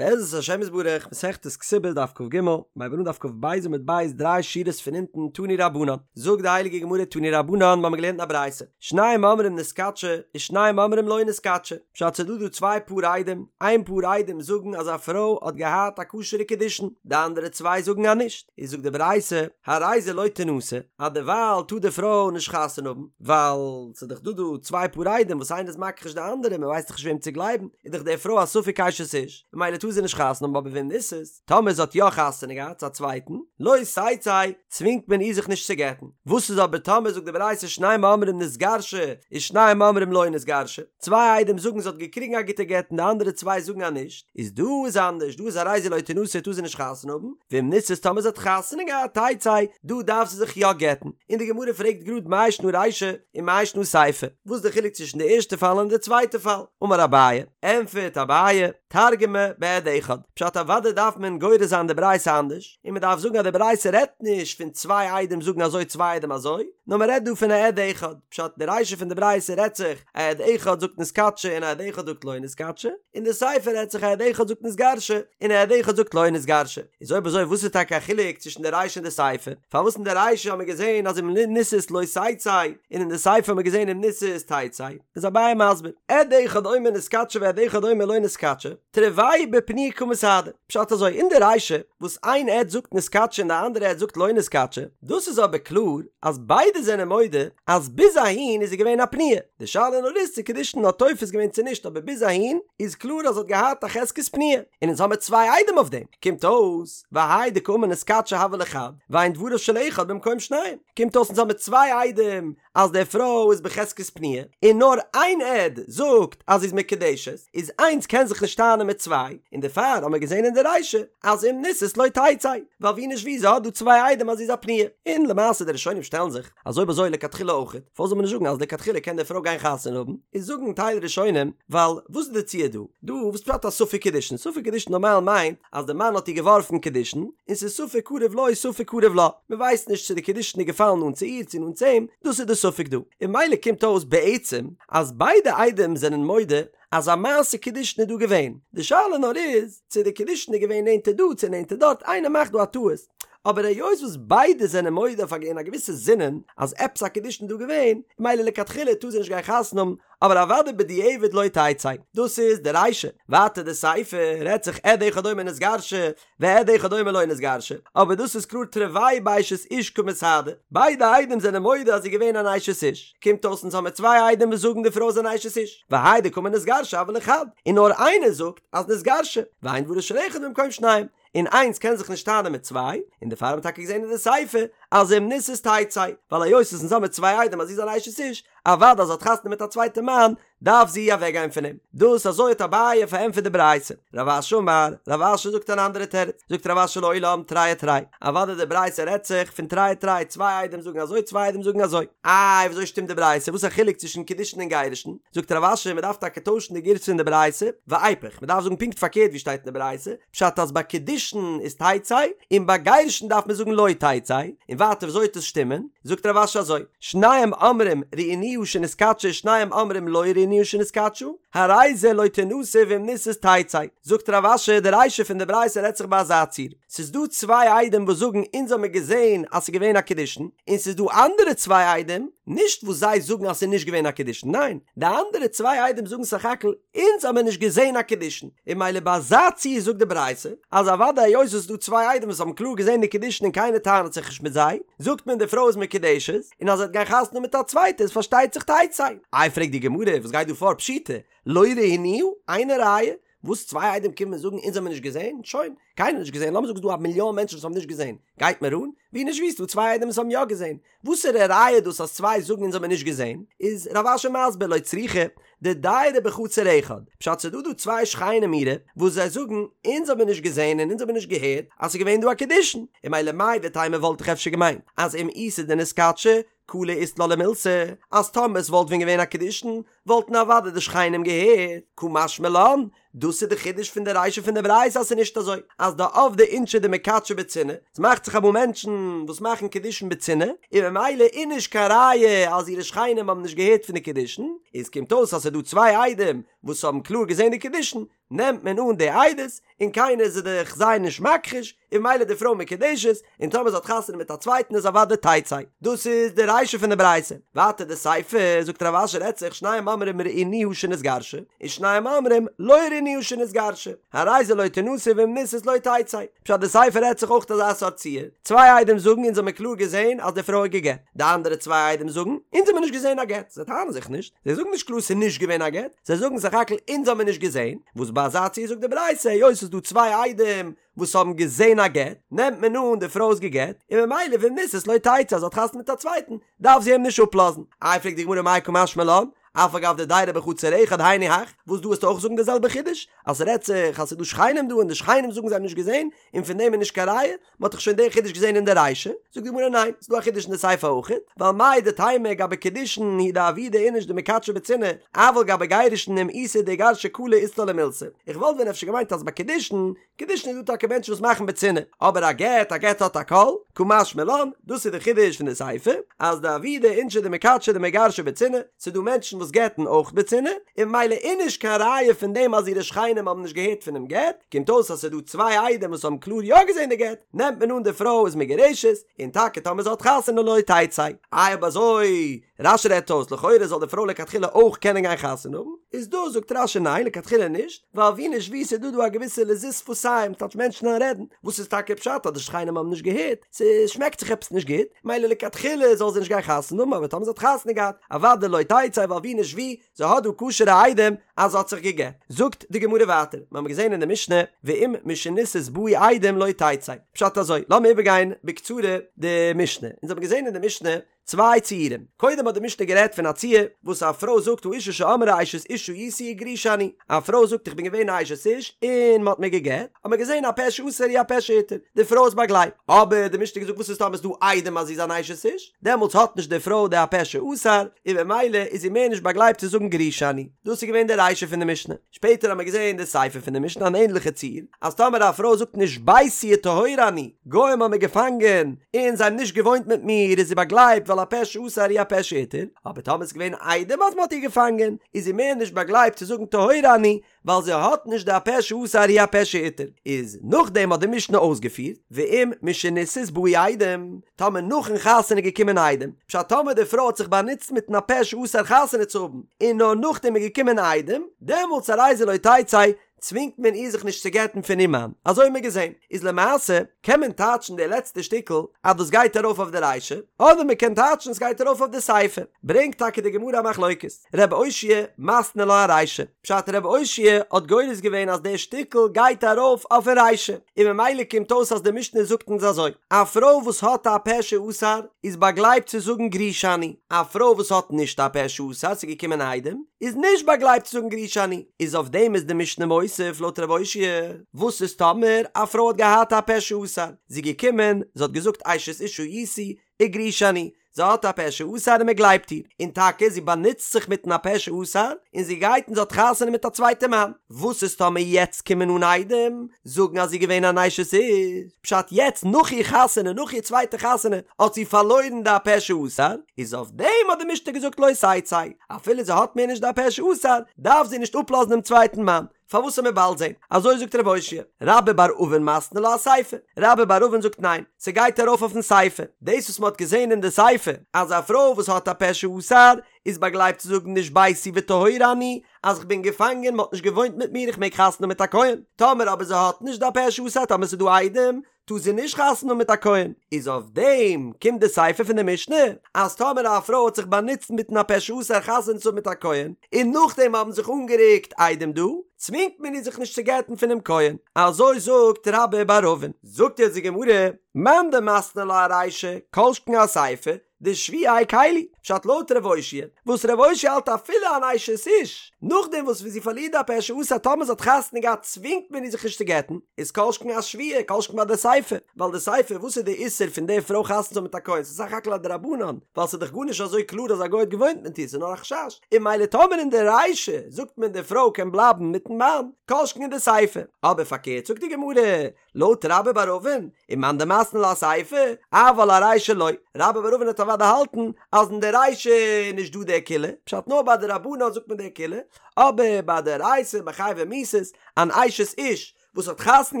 בעזרת השם יתברך, מסכת כתובות דף כג, מ'הייבט אן דף כ"ב עמוד ב' דריי שורות פון אונטן תנו רבנן, זאגט די הייליגע גמרא תנו רבנן מ'האמיר געלערנט אין א ברייתא, שניים אומרים נתקדשה ושניים אומרים לא נתקדשה, פשט ס'דא דא צוויי פאר עדים, איין פאר עדים זאגן אז א פרוי האט געהאט א כשר'ע קידושין, די אנדערע צוויי זאגן אז נישט, איז זאגט די ברייתא, הרי זה לא תנשא, אז דערווייל טאר די פרוי נישט חתונה האבן, ווייל ס'איז דאך דא דא צוויי פאר עדים וואס איינער איז מכחיש די אנדערע, מ'ווייסט דאך נישט וועם צו גלייבן, איז דאך די פרוי א ספק אשת איש, ממילא טאר זי נישט חתונה האבן אבער ואם נישאת, טאמער זי האט יא חתונה געהאט צו א צווייטן, לא תצא, צווינגט מען איר זיך נישט צו גט'ן. וואס איז אבער טאמער זאגט די ברייתא שניים אומרים נתגרשה ושניים אומרים לא נתגרשה, צוויי עדים זאגן זי האט געקריגן א גוטע גט און די אנדערע צוויי זאגן אז נישט, איז דא איז אנדערש, דא איז הרי זו לא תנשא טאר זי נישט חתונה האבן, ואם נישאת טאמער זי האט חתונה געהאט תצא, דא דארף זי זיך יא גט'ן, און די גמרא פרעגט גראד מאי שנא רישא ומאי שנא סיפא, וואס איז די חילוק צווישן די ערשטע פאל און די צווייטע פאל? אמר אביי, ענטפערט אביי, תרגמה בעד אחד, פשט אוודאי דארף מען גורס זיין די ברייתא אנדערש, און מען דארף זאגן אז די ברייתא רעדט נישט פון צוויי עדים זאגן אזוי צוויי עדים אזוי, נאר מען רעדט דא פון א עד אחד, פשט די רישא פון די ברייתא רעדט זיך א עד אחד זאגט נתקדשה און א עד אחד זאגט לא נתקדשה, און די סיפא רעדט זיך א עד אחד זאגט נתגרשה און א עד אחד זאגט לא נתגרשה, איז אויב אזוי וואס איז טאקע א חילוק צווישן די רישא און די סיפא? פארוואס אין די רישא האט מען געזען אז אם נישאת לא תצא און אין די סיפא האט מען געזען אם נישאת תצא? איז אביי מסביר, עד אחד אומר נתקדשה ועד אחד אומר לא נתקדשה, תרוייהו בפנויה קא מסהדי, פשט אזוי, אין די רישא וואס איין עד זאגט נתקדשה און די אנדערע עד זאגט לא נתקדשה, דאס איז אבער קלאר אז ביידע זענען מודה אז ביז אהין איז זי געווען א פנויה, די שאלה נאר איז צו קידושין האט תופס געווען צו נישט אבער ביז אהין איז קלאר אז זי האט געהאט א חזקת פנויה, און אונז האמיר צוויי עדים אויף דעם, קומט אויס והאי דקאמר נתקדשה הוה ליה חד, ואין דבריו של אחד במקום שניים, קומט אויס אונז האמיר צוויי עדים אז די פרוי איז בחזקת פנויה, און נאר איין עד זאגט אז זי איז מקודשת, איז איינס קען זיך נישט טענה'ן מיט צוויי, און דערפאר האבן מיר געזען אין די רישא אז אם נישאת לא תצא, ווייל ווי נישט ווי זי האט דא צוויי עדים אז זי איז א פנויה, און למעשה די ראשונים שטעלן זיך אז אויב אזוי לכתחילה אויכעט, פארוואס זאל מען נישט זאגן אז לכתחילה קען די פרוי גיין חתונה האבן, איז זאגן טייל ראשונים, ווייל וואס איז די ציור דא? דא וואס פשט א ספק קידושין? ספק קידושין נארמאל מיינט אז די מאן האט איר געווארפן קידושין, און ס'איז ספק קרוב לו ספק קרוב לה, מ'ווייסט נישט צו די קידושין איז געפאלן נאנט צו איר צו נאנט צו אים, דאס איז די ספק דא. און ממילא קומט אויס בעצם אז ביידע עדים זענען מודה אז א מעשה קידושין איז דא געווען, די שאלה נאר איז צו די קידושין איז געווען נענטער דא צו נענטער דארט, איינער מאכט דא א טעות, אבער היות וואס ביידע זענען מודה אויף א אין א געוויסע זינען אז עפעס א קידושין איז דא געווען, ממילא לכתחילה טאר זי נישט גיין חתונה האבן, אבער אוודאי בדיעבד לא תצא. דאס איז די רישא. ווייטער די סיפא רעדט זיך עד אחד אומר נתגרשה ועד אחד אומר לא נתגרשה, אבער דאס איז קלאר תרוייהו באשת איש קא מסהדי, ביידע עדים זענען מודה אז זי איז געווען אן אשת איש, קומט אויס אונז האמיר צוויי עדים וואס זאגן די פרוי איז אן אשת איש, והאי דקאמר נתגרשה הוה ליה חד, און נאר איינער זאגט אז נתגרשה, ואין דבריו של אחד במקום שניים, און איינס קען זיך נישט טענה'ן מיט צוויי, און דערפאר האט מען טאקע געזען אין די סיפא אז אם נישאת תצא, ווייל היות עס אונז האמיר צוויי עדים אז זי איז אן אשת איש, אוודאי אז זי האט חתונה מיט א צווייטע מאן, דארף זי אוועקגיין פון אים. דאס אזוי האט אביי פארענטפערט די ברייתא. רב אשי אמר, רב אשי זאגט אן אנדערע תירוץ, זאגט רב אשי לעולם תרי ותרי, אוודאי די ברייתא רעדט זיך פון תרי ותרי, צוויי עדים זאגן אזוי צוויי עדים זאגן אזוי. איי וויאזוי שטימט די ברייתא, וואס איז א חילוק צווישן קידושין און גירושין? זאגט רב אשי מען דארף טאקע טוישן די גירסא אין די ברייתא, ואיפוך, מען דארף זאגן פונקט פארקערט ווי שטייט אין די ברייתא, פשט אז ביי קידושין איז תצא, און ביי גירושין דארף מען זאגן לא תצא, און ווייטער וויאזוי וועט עס שטימען? זאגט רב אשי אזוי, שניים אומרים ראינוה שנתקדשה שניים אומרים לא ראינוה שנתקדשה, הרי זה לא תנשא ואם נישאת תצא, זאגט רב אשי די רישא פון די ברייתא רעדט זיך ביי אזא ציור, ס'איז דא צוויי עדים וואס זאגן אונז האמיר געזען אז ס'איז געווען א קידושין, און ס'איז דא אנדערע צוויי עדים, נישט וואס זיי זאגן אז ס'איז נישט געווען א קידושין, ניין, די אנדערע צוויי עדים זאגן סך הכל אונז האמיר נישט געזען א קידושין, און ממילא ביי אזא ציור זאגט די ברייתא אז אוודאי היות עס איז דא צוויי עדים וואס האבן קלאר געזען די קידושין און קיינער טענה'ט זיך נישט מיט זיי, זאגט מען די פרוי איז מקודשת, און אז זי וועט גיין חתונה מיט א צווייטע איז פארשטייט זיך תצא. איי פרעגט די גמרא וואס גייט דא פאר פשיטא, לא ראינוה, אינה ראיה, וואס צוויי עדים קומען זאגן אונז האמיר נישט געזען, שוין, קיינער האט נישט געזען, לאמיר זאגן ס'איז דא א מיליאן מענטשן וואס האבן נישט געזען, גייט מיר אן? ווי נישט ווי ס'איז דא צוויי עדים וואס האבן יא געזען, וואסערע ראיה איז דאס אז צוויי זאגן אונז האמיר נישט געזען? איז רב אשי מסביר לא צריכא דדיירי בחצר אחד, פשט ס'איז דא דא צוויי שכנים אירע וואס זיי זאגן אונז האמיר נישט געזען און אונז האמיר נישט געהערט אז ס'איז געווען דא א קידושין, און ממילא מהו דתימא וואלט איך אפשר געמיינט אז אם איתא דנתקדשה קלא אית לה למילתא, אז טאמער ס'וואלט ווען געווען א קידושין וואלטן אוודאי די שכנים געהערט, קא משמע לן. דאס איז די חידוש פון די רישא פון די ברייתא אז ס'איז נישט אזוי אז דעבדי אינשי דמקדשי בצנעה, ס'מאכט זיך אמאל מענטשן וואס מאכן קידושין בצנעה, און ממילא איז נישט קיין ראיה אז אירע שכנים האבן נישט געהערט פון די קידושין, איז קומט אויס אז ס'איז דא צוויי עדים וואס האבן קלאר געזען די קידושין, נעמט מען אן די עדות, און קיינער איז דאך זיי נישט מכחיש, און ממילא די פרוי מקודשת, און טאמער זי האט חתונה מיט א צווייטן איז אוודאי תצא. דאס איז די רישא פון די ברייתא. ווייטער די סיפא, זאגט רב אשי רעדט זיך שניים אומרים ראינוה שנתגרשה, און שניים אומרים לא ראינוה שנתגרשה, הרי זו לא תנשא ואם נישאת לא תצא. פשט די סיפא רעדט זיך אויך אזא סארט ציור, צוויי עדים זאגן אונז האמיר קלאר געזען אז די פרוי האט גע'גט, די אנדערע צוויי עדים זאגן אונז האמיר נישט געזען א גט, זיי טענה'ן זיך נישט, זיי זאגן נישט קלאר ס'איז נישט געווען א גט, זיי זאגן סך הכל אונז האמיר נישט געזען, וואס ביי אזא ציור זאגט די ברייתא היות ס'איז דא צוויי עדים וואס האבן געזען א גט, נעמט מען אן די פרוי איז גע'גט, און ממילא ואם נישאת לא תצא אז זי האט חתונה מיט א צווייטן, דארף זי אים נישט אפלאזן. איי פרעגט די גמרא מאי קא משמע לן, אף על גב דדיירי בחצר אחד היינו הך, וואס דא וועסטו אויך זאגן די זעלבע חידוש, אז ס'רעדט זיך אז ס'איז דא שכנים דא און די שכנים זאגן זיי האבן נישט געזען, און פון דעם איז נישט קיין ראיה, מ'האט דאך שוין די חידוש געזען אין די רישא, זאגט די גמרא ניין, ס'איז דא א חידוש אין די סיפא אויך, ווייל מהו דתימא גבי קידושין הוא דעבידי איניש דמקדשי בצנעה, אבל גבי גירושין אם איתא דאיגרשה קלא אית לה למילתא, איך וואלט ווען אפשר געמיינט אז ביי קידושין, קידושין איז דא טאקע מענטשן וואס מאכן בצנעה, אבער א גט, א גט האט א קול, קא משמע לן, דאס איז די חידוש פון די סיפא, אז דעבידי אינשי דמקדשי דמיגרשי בצנעה, ס'איז דא מענטשן וואס גט'ן אויך בצנעה, און ממילא איז נישט קיין ראיה פון דעם אז אירע שכנים האבן נישט געהערט פונעם גט, קומט אויס אז ס'איז דא צוויי עדים וואס האבן קלאר יא געזען די גט, נעמט מען אן די פרוי איז מגורשת, און טאקע טאמער זי האט חתונה לא תצא. איי אויב אזוי, רש"י רעדט אויס, לכאורה זאל די פרוי לכתחילה אויך קענען גיין חתונה האבן, איז דא זאגט רש"י ניין לכתחילה נישט, ווייל ווי נישט ווי ס'איז דא דא א געוויסע לזות שפתיים, טייטש מענטשן וועלן רעדן, וואס איז טאקע פשט אז די שכנים האבן נישט געהערט, ס'שמעקט זיך עפעס נישט גוט, מילא לכתחילה זאל זי נישט גיין חתונה האבן, אבער טאמער זי האט חתונה געהאט, אוודאי לא תצא ווייל ווי נישט ווי, זי האט דא כשר'ע עדים אז זי האט זיך גע'גט. זאגט די גמרא ווייטער, מיר האבן געזען אין די משנה, ואם משנישאת באו עדים לא תצא. פשט אזוי, לאמיר איבערגיין בקצרה די משנה. אונז האבן געזען אין די משנה צוויי ציורים. קודם האט די משנה גערעדט פון א ציור וואס א פרוי זאגט האשה שאמרה אשת איש הייתי וגרושה אני. א פרוי זאגט איך בין געווען א אשת איש און מען האט מיר גע'גט. האט מען געזען הפה שאסר הוא הפה שהתיר. די פרוי איז באגלייבט. אבער די משנה האט געזאגט וואס איז טאמער איז דא עדים אז זי איז אן אשת איש? דעמאלטס האט נישט די פרוי די הפה שאסר, און במילא איז זי מער נישט באגלייבט צו זאגן גרושה אני. דאס איז געווען די רישא פון די משנה. שפעטער האט מען געזען די סיפא פון די משנה אן ענדליכע ציור, אז טאמער א פרוי זאגט נשביתי וטהורה אני, גוים האבן מיר געפאנגען, און זיי האבן נישט געוואוינט מיט מיר, איז זי באגלייבט ווייל הפה שאסר הוא הפה שהתיר, אבער טאמער ס'איז געווען עדים אז מ'האט איר געפאנגען, איז זי מער נישט באגלייבט צו זאגן טהורה אני, ווייל זי האט נישט די הפה שאסר הוא הפה שהתיר, איז נאכדעם האט די משנה אויסגעפירט, ואם משנישאת באו עדים, טאמער נאכן חתונה איז געקומען עדים, פשט טאמער די פרוי האט זיך באנוצט מיטן הפה שאסר חתונה צו האבן, און נאר נאכדעם איז געקומען עדים, דעמאלטס הרי זו לא תצא, צווינגט מען איר זיך נישט צו גט'ן פון איר מאן, אזוי האט מען געזען, איז למעשה קען מען טייטשן די לעצטע שטיקל אז דאס גייט ארויף אויף די רישא, אדער מען קען טייטשן עס גייט ארויף אויף די סיפא, ברענגט טאקע די גמרא א מחלוקת. ר' אושעיא מתני לה ארישא, פשט ר' אושעיא האט גורס געווען אז דער שטיקל גייט ארויף אויפן רישא, און ממילא קומט אויס אז די משנה זאגט אונז אזוי, א פרוי וואס האט א פה שאסר איז באגלייבט צו זאגן גרושה אני, א פרוי וואס האט נישט א פה שאסר ס'איז געקומען עדים, איז נישט באגלייבט צו זאגן גרושה אני, איז אויף דעם איז די משנה מוסיף לויט ר' אושעיא, וואס איז טאמער א פרוי האט געהאט א פה שאסר, זי איז געקומען, זי האט געזאגט אשת איש הייתי, וגרושה אני, זי האט א פה שאסר און מען גלייבט איר, און טאקע זי באנוצט זיך מיטן הפה שאסר, און זי גייט און זי האט חתונה מיט א צווייטע מאן, וואס איז טאמער יעצט קומען אן עדים זאגן אז זי איז געווען אן אשת איש, פשט יעצט נאך איר חתונה, נאך איר צווייטע חתונה, האט זי פארלוירן די הפה שאסר, איז אויף דעם האט די משנה געזאגט לא תצא, אפילו זי האט מער נישט די הפה שאסר, דארף זי נישט אפלאזן דעם צווייטן מאן, פארוואס וועט מען באלד זען? אזוי זאגט רב אושעיא. רבה בר אבין מתני לה אסיפא. רבה בר אבין זאגט ניין, ס'גייט ארויף אויפן סיפא. דאס וואס מ'האט געזען אין די סיפא, אז א פרוי וואס האט א פה שאסר, איז באגלייבט צו זאגן נשביתי וטהורה אני, אז כ'בין געפאנגען, מ'האט נישט געוואוינט מיט מיר, איך מעג חתונה האבן מיט א כהן. טאמער אבער זי האט נישט די פה שאסר, טאמער ס'איז דא עדים, טאר זי נישט חתונה האבן מיט א כהן, איז אויף דעם קומט די סיפא פון די משנה, אז טאמער א פרוי האט זיך באנוצט מיטן הפה שאסר חתונה צו האבן מיט א כהן, און נאכדעם האבן זיך אנגערוקט עדים דא, צווינגט מען איר זיך נישט צו גט'ן פונעם כהן, אזוי זאגט רבה בר אבין. זאגט יעצט די גמרא, מאן דמתני לה ארישא, כל שכן אסיפא, דשבויה הקילו. פשט לויט ר' אושעיא, וואס ר' אושעיא האלט אפילו אן אשת איש, נאכדעם וואס ווי זי פארלירט די הפה שאסר טאמער זי האט חתונה געהאט צווינגט מען איר זיך נישט צו גט'ן, איז כל שכן א שבויה, כל שכן ביי די סיפא, ווייל די סיפא וואס איז די איסור פון די פרוי חתונה צו האבן מיט א כהן, ס'איז סך הכל א דרבנן, ווייל ס'איז דאך גארנישט אזוי קלאר אז א גוי האט געוואוינט מיט איר, ס'איז נאר א חשש, און ממילא טאמער אין די רישא זאגט מען די פרוי קען בלייבן מיטן מאן, כל שכן אין די סיפא. אבער פארקערט זאגט די גמרא, לויט רבה בר אבין, ומאן דמתני לה אסיפא, אבל ארישא לא, רבה בר אבין וועט אוודאי האלטן אז אין די רישא איז נישט דא די קולא, פשט נאר ביי דרבנן זאגט מען די קולא, אבער ביי דאורייתא ביי חייבי מיתות, אן אשת איש וואס האט חתונה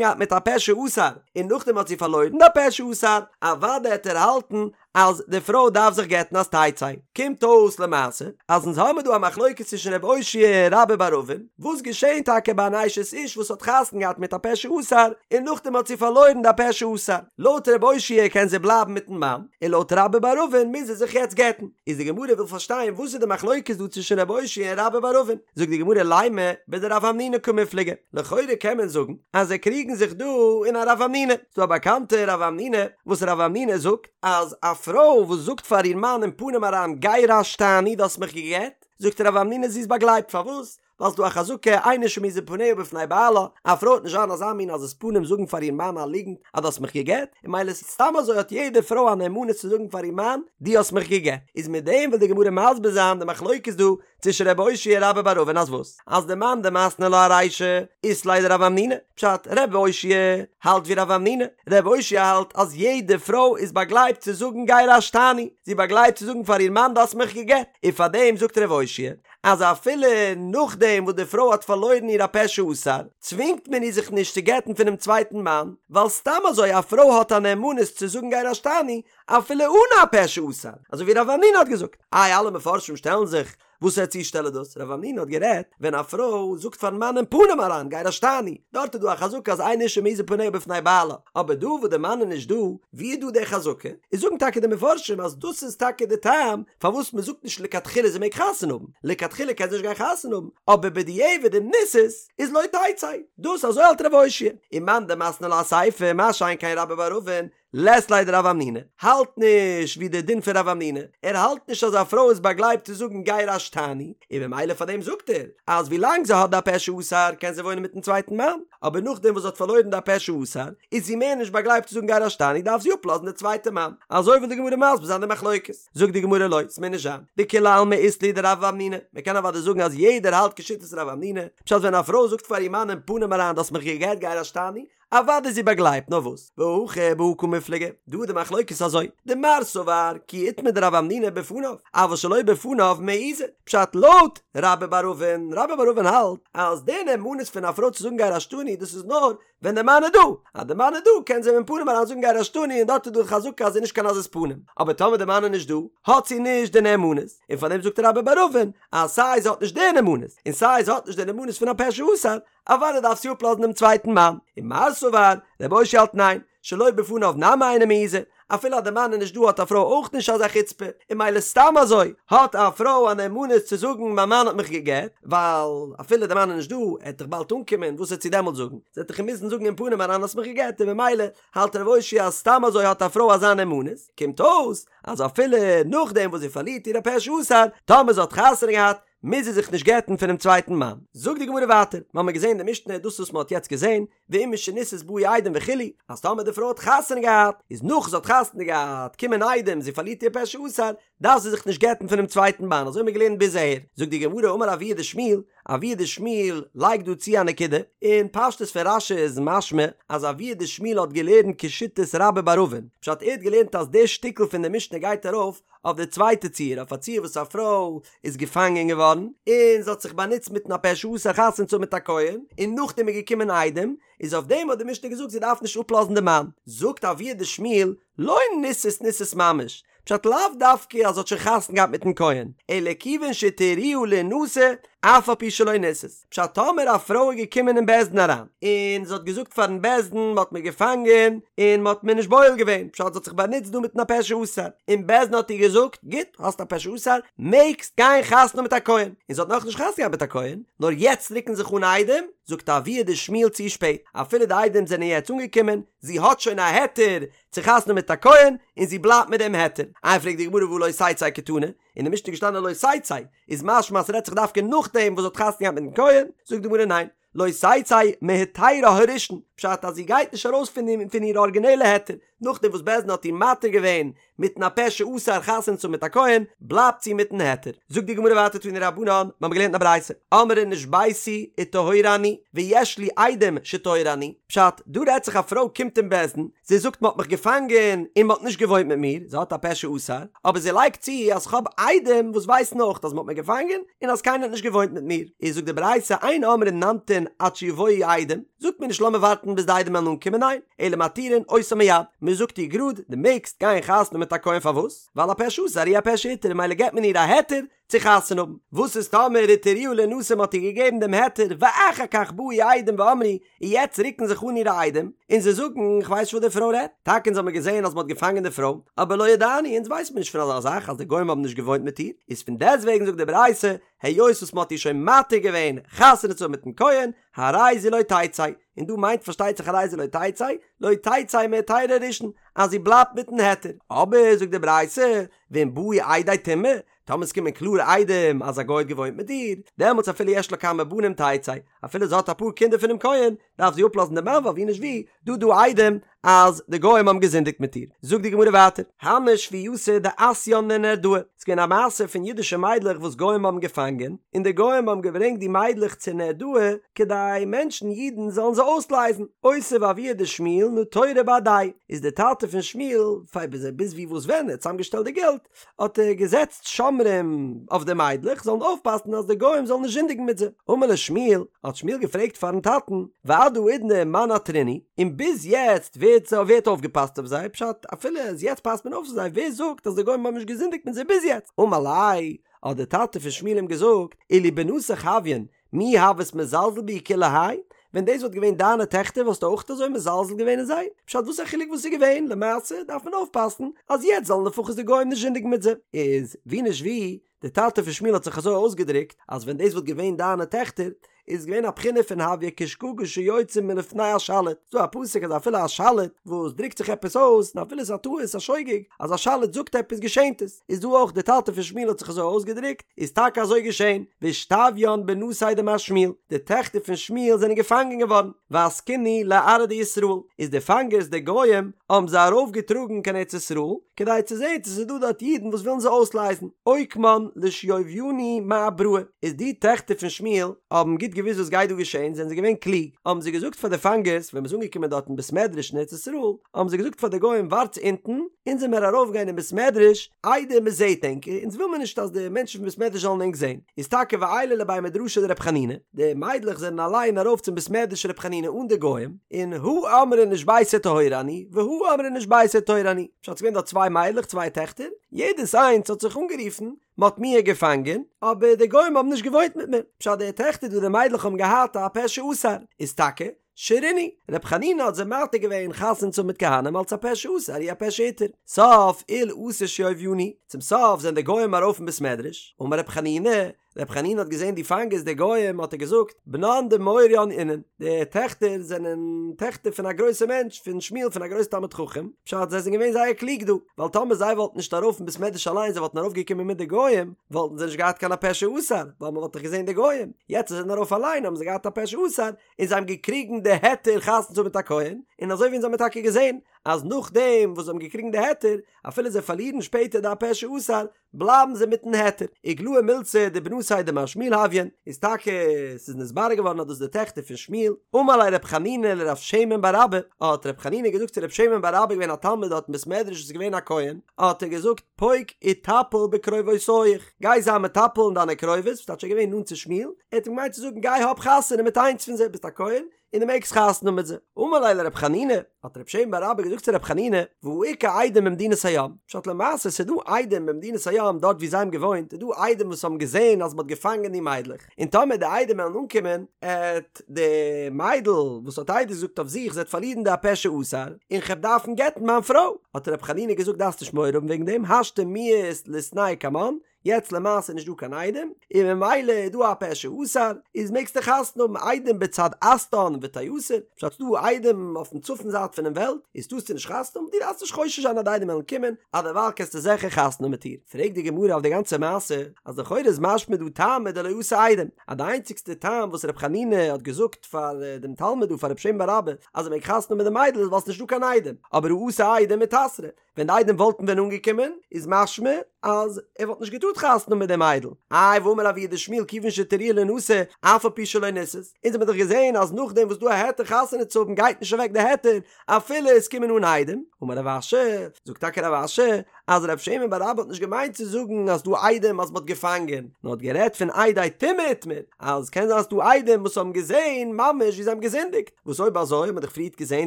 געהאט מיט א פה שאסר און נאכדעם האט זי פארלוירן די פה שאסר, אוודאי העט ער האלטן אז די פרוי דארף זיך גט'ן אז תצא. קומט אויס למעשה אז אונז האמיר דא א מחלוקת צווישן ר' אושעיא און רבה בר אבין, וואס געשעהן טאקע ביי אן אשת איש וואס האט חתונה געהאט מיט א פה שאסר און נאכדעם האט זי פארלוירן די פה שאסר, לויט ר' אושעיא קען זי בלייבן מיטן מאן, און לויט רבה בר אבין מוז זי זיך יעצט גט'ן. איז די גמרא וויל פארשטיין וואס איז די מחלוקת דא צווישן ר' אושעיא און רבה בר אבין, זאגט די גמרא לימא בדרב המנונא קמיפלגי, לכאורה קען מען זאגן אז זיי קריגן זיך דא אין א רב המנונא, ס'דא א באקאנטע רב המנונא וואס רב המנונא זאגט אז א פרוי וואס זאגט פאר איר מאן אין פנים אריין גירשתני דו האסט מיך גע'גט, זאגט רב המנונא זי איז באגלייבט פארוואס? ווייל ס'דא א חזקה אין אשה מעיזה פניה בפני בעלה, א פרוי וועט נישט זיין אזא מין עזות פנים זאגן פאר איר מאן א ליגנט אז דו האסט מיך גע'גט, און ממילא סתם אזוי האט יעדע פרוי א נאמנות צו זאגן פאר איר מאן דו האסט מיך גע'גט, איז מיט דעם וויל די גמרא מסביר זיין די מחלוקת דא צווישן ר' אושעיא און רבה בר אבין אז וואס? אז דמאן דמתני לה ארישא אית ליה דרב המנונא, פשט, ר' אושעיא האלט ווי רב המנונא, ר' אושעיא האלט אז יעדע פרוי איז באגלייבט צו זאגן גירשתני, זי באגלייבט צו זאגן פאר איר מאן דו האסט מיך גע'גט, און פארדעם זאגט ר' אושעיא אז אפילו נאכדעם וואס די פרוי האט פארלוירן איר הפה שאסר, צווינגט מען איר זיך נישט צו גט'ן פונעם צווייטן מאן, ווייל סתם אזוי א פרוי האט א נאמנות צו זאגן גירשתני אפילו אן א פה שאסר, אזוי ווי רב המנונא האט געזאגט. איי אלע מפרשים שטעלן זיך וואסער צושטעל איז דאס? רב המנונא האט גערעדט ווען א פרוי זאגט פארן מאן אין פנים אריין גירשתני, דארט איז דא א חזקה אז אין אשה מעיזה פניה בפני בעלה, אבער דא וואס די מאן איז נישט דא, ווי איז דא די חזקה? איז זאגן טאקע די מפרשים אז דאס איז טאקע די טעם פארוואס מען זאגט נישט לכתחילה זי מעג חתונה האבן, לכתחילה קען זי נישט גיין חתונה האבן, אבער בדיעבד אם נישאת איז לא תצא, דאס אזוי האלט רב אושעיא, ומאן דמתני לה אסיפא, מה שאין כן רבה בר אבין, לית ליה דרב המנונא, האלט נישט ווי די דין פון רב המנונא, ער האלט נישט אז א פרוי איז באגלייבט צו זאגן גירשתני, און ממילא פאר דעם זאגט ער אז ווי לאנג זי האט די הפה שאסר קען זי וואוינען מיטן צווייטן מאן, אבער נאכדעם וואס זי האט פארלוירן די הפה שאסר איז זי מער נישט באגלייבט צו זאגן גירשתני דארף זי אפלאזן די צווייטע מאן, אזוי וויל די גמרא מסביר זיין די מחלוקת, זאגט די גמרא לא, ס'מוז נישט זיין, דכולי עלמא אית להו דרב המנונא, מ'קען אוודאי זאגן אז יעדער האלט כשיטת רב המנונא, פשט ווען א פרוי זאגט פאר איר מאן אין פנים אריין דו האסט מיך גע'גט גירשתני, אוודאי איז זי באגלייבט, נאר וואס? והכא בהא קמיפלגי, דא איז די מחלוקת אזוי, דמר סבר כי איתמר דרב המנונא בפניו, אבל שלא בפניו מעיזה, פשט לויט רבה בר אבין, רבה בר אבין האלט אז די נאמנות פון א פרוי צו זאגן גירשתני דאס איז נאר ווען די מאן איז דא, אז די מאן איז דא קען זי אים אין פנים אריין זאגן גירשתני און דארט איז דא חזקה אז זי איז נישט קיין עזות פנים, אבער טאמער די מאן איז נישט דא האט זי נישט די נאמנות, און פארדעם זאגט רבה בר אבין אז סיי זי האט נישט די נאמנות און סיי זי האט נישט די נאמנות פון א פה שאסר, אוודאי דארף זי אפלאזן דעם צווייטן מאן. ומר סבר, רבי אושעיא האלט ניין, שלא בפניו נמי אינה מעיזה, אפילו אז די מאן איז נישט דא האט א פרוי אויך נישט אזא חוצפה, און ממילא סתם אזוי האט א פרוי א נאמנות צו זאגן מיין מאן האט מיך גע'גט, ווייל אפילו די מאן איז נישט דא, ער וועט דאך באלד אנקומען, וואס וועט זי דעמאלט זאגן? זי וועט דאך אים מוזן זאגן אין פנים אריין האסט מיך גע'גט, און ממילא האלט רבי אושעיא אז סתם אזוי האט א פרוי אזא נאמנות, קומט אויס אז אפילו נאכדעם וואס זי פארלירט איר הפה שאסר, טאמער זי האט חתונה געהאט, מוז זי זיך נישט גט'ן פונעם צווייטן מאן. זאגט די גמרא ווייטער, מיר האבן געזען אין די משנה דאס וואס מען האט יעצט געזען, ואם משנישאת באו עדים וכו', אז טאמער די פרוי האט חתונה געהאט, איז נאך זי האט חתונה געהאט, קומען עדים, זי פארלירט איר פה שאסר, דארף זי זיך נישט גט'ן פונעם צווייטן מאן, אזוי האבן מיר געלערנט ביז אהער. זאגט די גמרא, אמר אבוה דשמואל, אבוה דשמואל לייגט דא צו א נקודה, און פשטות פון רש"י איז משמע אז אבוה דשמואל האט געלערנט כשיטת רבה בר אבין, פשט ער האט געלערנט אז די שטיקל פון די משנה גייט ארויף אויף די צווייטע ציור, אויף א ציור וואס א פרוי איז געפאנגען געווארן, און זי האט זיך באנוצט מיטן הפה שאסר חתונה צו האבן מיט א כהן, און נאכדעם איז געקומען עדים, איז אויף דעם האט די משנה געזאגט זי דארף נישט אפלאזן די מאן. זאגט אבוה דשמואל, לא נישאת נישאת ממש, פשט לאו דווקא אז זי האט שוין חתונה געהאט מיטן כהן, אלא כיוון שהתירוה לינשא אף על פי שלא נישאת, פשט טאמער א פרוי איז געקומען אין בית דין אריין, און זי האט געזאגט פארן בית דין מען האט מיר געפאנגען און מען האט מיר נישט בועל געווען, פשט זי האט זיך באנוצט דא מיטן הפה שאסר, און בית דין האט איר געזאגט, גוט, האסט א פה שאסר, מעגסט גיין חתונה האבן מיט א כהן, און זי האט נאכנישט חתונה געהאט מיט א כהן, נאר יעצט רוקן זיך אן עדים, זאגט אבוה דשמואל צו שפעט, אפילו די עדים זענען יעצט אנגעקומען, זי האט שוין א היתר צו חתונה האבן מיט א כהן, און זי בלייבט מיט דעם היתר. איי פרעגט די גמרא והא לא תצא קתני, אין די משנה איז געשטאנען לא תצא, איז משמע אז ס'רעדט זיך דווקא נאכדעם וואס זי האט חתונה געהאט מיטן כהן, זאגט די גמרא ניין, לא תצא מהיתרה הראשון, פשט אז זי גייט נישט ארויס פון פון איר ארגינעלע היתר, נאכדעם וואס בית דין האט איר מתיר געווען מיטן הפה שאסר חתונה צו האבן מיט א כהן, בלייבט זי מיטן היתר. זאגט די גמרא ווייטער תנו רבנן, מיר האבן געלערנט אין א ברייתא, אמרה נשביתי וטהורה אני, ויש לי עדים שטהורה אני, פשט, דא רעדט זיך א פרוי קומט אין בית דין, זי זאגט מען האט מיך געפאנגען און מען האט נישט געוואוינט מיט מיר, זי האט א פה שאסר, אבער זי לייגט צו אז כ'האב עדים וואס ווייסן אויך אז מען האט מיר געפאנגען און אז קיינער האט נישט געוואוינט מיט מיר, איז זאגט די ברייתא אין אומרים נמתין עד שיבואו עדים, זאגט מען נישט לאמיר ווארטן ביז די עדים וועלן אנקומען ניין, אלא מתירין אותה מיד, מען זאגט איר גראד דו מעגסט גיין חתונה מיט א כהן פארוואס? ווייל הפה שאסר הוא הפה שהתיר ממילא געבט מען איר א היתר צו חתונה האבן, וואס איז טאמער התירוה לינשא מ'האט איר געגעבן דעם היתר ואחר כך באו עדים ואמרו און יעצט רוקן זיך אן אירע עדים און זיי זאגן איך ווייס נישט וואס די פרוי רעדט, טאקע אונז האמיר געזען אז מ'האט געפאנגען די פרוי, אבער לא ידענו אונז ווייסן מיר נישט פון אזא זאך אז די גוים האבן נישט געוואוינט מיט איר, איז פון דעסטוועגן זאגט די ברייתא היות וואס מ'האט איר שוין מתיר געווען חתונה צו האבן מיטן כהן, הרי זו לא תצא, און דא מיינט פארשטייט זיך הרי זו לא תצא, לא תצא מהיתרה הראשון, אז זי בלייבט מיטן היתר, אבער זאגט די ברייתא, ואם באו עדי טומאה, טאמער עס קומען קלארע עדים אז א גוי האט געוואוינט מיט איר, דעמאלטס אפילו יש לה כמה בנים תצא, אפילו זי האט אפאר קינדער פונעם כהן, דארף זי אפלאזן דעם מאן ווייל ווי נישט ווי, דא דא עדים אז די גוים האבן געזינדיגט מיט איר. זאגט די גמרא ווייטער, הני שבוייתא דאתיין לנהרדעא, ס'איז געווען א מעשה פון אידישע מיידלעך וואס גוים האבן געפאנגען, און די גוים האבן געברענגט די מיידלעך צו נהרדעא, כדי מענטשן, אידן, זאלן זיי אויסלייזן, אותיב אבוה דשמואל נטורי בהדייהו, איז דער טאטע פון שמואל, פאר ביז ווי וואס ווען ער האט צוזאמגעשטעלט די געלט, האט ער געזעצט שומרים אויף די מיידלעך זאלן אויפפאסן אז די גוים זאלן נישט זינדיגן מיט זיי. אמר ליה שמואל, האט שמואל געפרעגט פארן טאטן, ועד האידנא מאן עתרינהו, און ביז יעצט ווער האט ווער האט אויפגעפאסט אויף זיי, פשט, אפילו אז יעצט פאסט מען אויף אויף זיי, ווער זאגט אז די גוים האבן נישט געזינדיגט מיט זיי ביז יעצט? אמר ליה, האט דער טאטע פון שמואל אים געזאגט, אילו בנתיך הויין, מי הוית מזלזל בהו כולי האי? ווען דאס וואלט געווען דיינע טעכטער וואלסטו אויך אזוי מזלזל געווען אין זיי? פשט וואס א חילוק וואס איז געווען, למעשה דארף מען אויפפאסן אז יעצט זאלן לפחות די גוים נישט זינדיגן מיט זיי. איז ווי נישט ווי, די טאטע פון שמואל האט זיך אזוי אויסגעדרוקט אז ווען דאס וואלט געווען דיינע טעכטער איז געווען א בחינה פון הויא כשגגה שיוצאה מלפני השליט, ס'דא א פסוק אז אפילו א שליט וואס דרוקט זיך עפעס אויס און אפילו ס'איז א טעות א שוגג אז א שליט זאגט עפעס געשענט עס. איז דא אויך די טאטע פון שמואל האט זיך אזוי אויסגעדרוקט, איז טאקע אזוי געשען, ואישתביין בנתיה דמר שמואל, די טעכטער פון שמואל זענען געפאנגען געווארן, ואסקינהו לארעא דישראל, איז די פאנגערס די גוים האבן זיי ארויף געטראגן קיין ארץ ישראל, כדי צו זען צו ס'איז דא דארט אידן וואס ווילן זיי אויסלייזן, אוקמן לשוביינהו מאבראי, איז די טעכטער פון שמואל האבן גוט געוואוסט וואס גייט דא געשען, זענען זיי געווען קלוג, האבן זיי געזאגט פאר די פאנגערס ווען מ'איז אנגעקומען דארט אין בית מדרש אין ארץ ישראל, האבן זיי געזאגט פאר די גוים ווארטס אונטן, אונז וועמיר ארויף גיין אין בית מדרש איידער מען זעהט ענק, אונז וויל מיר נישט אז די מענטשן פון בית מדרש זאלן ענק זעהן, איז טאקע ועיילי לבי מדרשא דרב חנינא, די מיידלעך זענען אליין ארויף צום בית מדרש רב חנינא אן די גוים, און הא אמרה נשביתי וטהורה אני, והא אמרה נשביתי וטהורה אני, פשט ס'געווען דארט צוויי מיידלעך צוויי טעכטער, יעדעס איינס האט זיך אנגערופן, מ'האט מיר געפאנגען, אבער די גוים האבן נישט געוואוינט מיט מיר, פשט די טעכטער דא די מיידלעך האבן געהאט א פה שאסר, איז טאקע, שרינהו, ר' חנינא האט זיי מתיר געווען חתונה צו האבן מיט כהנים אלץ הפה שאסר הוא הפה שהתיר. סוף עול אתא שוביינהו, צום סוף זענען די גוים ארויף אין בית מדרש, אמר ר' חנינא, ר' חנינא האט געזען די פאנגערס די גוים האט ער געזאגט, בנן דמוריין אינון, די טעכטער זענען טעכטער פון א גרויסע מענטש, פון שמואל פון א גרויסע תלמיד חכם, פשט זיי זענען געווען זייער קלוג דא, ווייל טאמער זיי וואלטן נישט ארויף אין בית מדרש אליין זיי וואלטן ארויף געקומען מיט די גוים, וואלטן זיי נישט געהאט קיין הפה שאסר, ווייל מען וואלט דאך געזען די גוים, יעצט זיי זענען ארויף אליין האבן זיי געהאט הפה שאסר, און זיי האבן געקריגן די היתר חתונה צו האבן מיט א כהן, און אזוי ווי אונז האמיר טאקע געזען אז נאכדעם וואס זיי האבן געקריגן די היתר, אפילו זיי פארלירן שפעטער די הפה שאסר, בלייבן זיי מיטן היתר. איגלאי מילתא דבנתיה דמר שמואל הויין, איז טאקע ס'איז נתברר געווארן אז דאס איז די טעכטער פון שמואל, אמר ליה רב חנינא לרב שמן בר אבא, האט רב חנינא געזאגט צו רב שמן בר אבא געווען א תלמיד דארט אין בית מדרש וואס איז געווען א כהן, האט ער געזאגט פוק איטפל בקרובותיך, גיי זיי מטפל אין דיינע קרובות, ס'טייטש ער איז געווען נאנט צו שמואל, ער האט אים געמיינט צו זאגן גיי האב חתונה מיט איינס פון זיי, ביסט א כהן און דו מעגסט חתונה האבן מיט זיי. אמר ליה לרב חנינא, האט רב שמן בר אבא געזאגט צו רב חנינא, והא איכא עדים במדינת הים, פשט למעשה ס'איז דא עדים במדינת הים דארט ווי זיי האבן געוואוינט איז דא עדים וואס האבן געזען אז מ'האט געפאנגען די מיידלעך, און טאמער די עדים וועלן אנקומען, עט די מיידל וואס האט עדות געזאגט אויף זיך זי עט פארלירן די הפה שאסר, און כ'עט דארפן גט'ן מיין פרוי. האט רב חנינא געזאגט דארפסט נישט מורא האבן וועגן דעם, השתא מיהת ליתנהו קמן, יעצט למעשה איז נישט דא קיין עדים, און ממילא איז דא א פה שאסר, איז מעגסטו חתונה האבן עדים בצד אסתן ותיאסר, פשט ס'דא עדים אויפן צפון זייט פונעם וועלט, איז טארסטו נישט חתונה האבן, דו דארפסט נישט חושש זיין אז די עדים וועלן קומען, אז דערווייל קענסטו זיכער חתונה האבן מיט איר. פרעגט די גמרא אויף די גאנצע מעשה, אז לכאורה איז משמע דא טעמא דלא אתו עדים, אז די איינציגסטע טעם וואס ר' חנינא האט געזאגט פאר דעם תלמיד דא פאר רב שמן בר אבא אז ער מעג חתונה האבן מיט די מיידל איז ווייל ס'נישט דא קיין עדים, אבער הא אתו עדים מיתסרא, ווען די עדים וואלטן ווען אנגעקומען איז משמע אז ער וואלט נישט געטארט חתונה האבן מיט די מיידל, איי והאמר אבוה דשמואל כיוון שהתירוה לינשא אף על פי שלא נישאת, אונז האמיר דאך געזען אז נאכדעם וואס דא א היתר חתונה צו האבן גייט נישט אוועק די היתר אפילו עס קומען אן עדים, אמר רב אשי, זאגט טאקע רב אשי אז רב שמן בר אבא האט נישט געמיינט צו זאגן אז דא עדים אז מען האט געפאנגען, נאר האט גערעדט פון עדי טומאה איתמר, אז קען זיין אז ס'דא עדים וואס האבן געזען ממש ווי זיי האבן געזינדיגט, וואס אויב אזוי האט מען דאך פריערט געזען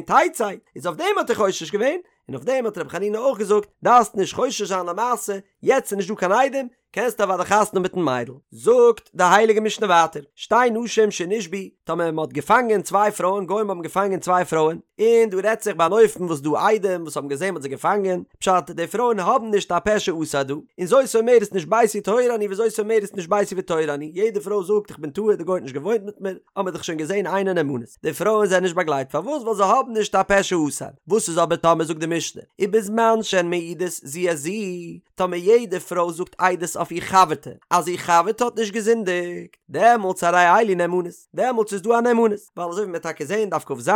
תצא, איז אויף דעם האט ער חושש געווען, און אויף דעם האט רבי חנינא אויך געזאגט, דארפסט נישט חושש זיין למעשה, יעצט איז נישט דא קיין עדים, קענסט אוודאי חתונה האבן מיטן מיידל. זאגט די הייליגע משנה ווייטער, שתי נשים שנשבו, טאמער מען האט געפאנגען צוויי פרויען, גוים האבן געפאנגען צוויי פרויען, און דא רעדט זיך ביי אן אופן וואס דא עדים וואס האבן געזען מען האט זיי געפאנגען, פשט, די פרויען האבן נישט א פה שאסר דא, און זאת אומרת נשביתי וטהורה אני וזאת אומרת נשביתי וטהורה אני, יעדע פרוי זאגט איך בין טהור די גוי האט נישט געוואוינט מיט מיר, האבן מיר דאך שוין געזען אינן נאמנות, די פרויען זענען נישט באגלייבט פארוואס ווייל זיי האבן נישט א פה שאסר, וואס איז אבער טאמער זאגט די משנה, ובזמן שהן מעידות זו את זו, טאמער יעדע פרוי זאגט עדות אויף איר חבר'טע אז איר חבר'טע האט נישט געזינדיגט, דעמאלטס הרי אלו נאמנות, דעמאלטס איז דא א נאמנות, ווייל אזוי ווי מ'וועט טאקע זען דף כ"ז,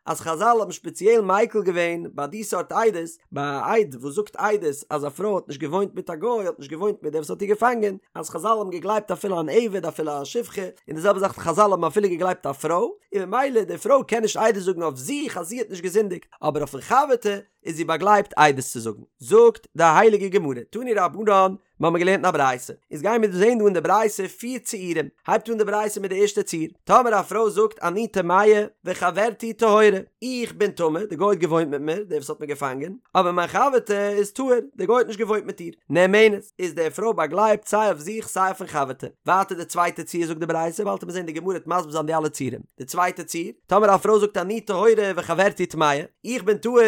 אז חזל האבן שפעציעל מיקל געווען ביי די סארט עדות, ביי א עד וואס זאגט עדות אז א פרוי האט נישט געוואוינט מיט א גוי, האט נישט געוואוינט מיט דער וואס האט איר געפאנגען, אז חזל האבן געגלייבט אפילו אן עבד אפילו א שפחה, און די זעלבע זאך חזל האבן אפילו געגלייבט א פרוי, און ממילא די פרוי קען נישט עדות זאגן אויף זיך אז זי האט נישט געזינדיגט, אבער אויפן חבר'טע איז זי באגלייבט עדות צו זאגן. זאגט די הייליגע גמרא, תנו רבנן, מיר האבן געלערנט אין א ברייתא, איז גייען מיר דא זען דא אין די ברייתא פיר ציורים, הייבט אן די ברייתא מיט די ערשטע ציור, טאמער א פרוי זאגט אני טמאה וחברתי טהורה, איך בין טמא, די גוי האט געוואוינט מיט מיר, דער וואס האט מיר געפאנגען, אבער מיין חבר'טע איז טהור, די גוי האט נישט געוואוינט מיט איר, נאמנת, איז די פרוי באגלייבט סיי אויף זיך סיי אויפן חבר'טע. ווייטער די צווייטע ציור זאגט די ברייתא, באלד וועט מען זען די גמרא וועט מסביר זיין די אלע ציורים, די צווייטע ציור, טאמער א פרוי זאגט אני טהורה וחברתי טמאה, איך בין טהור,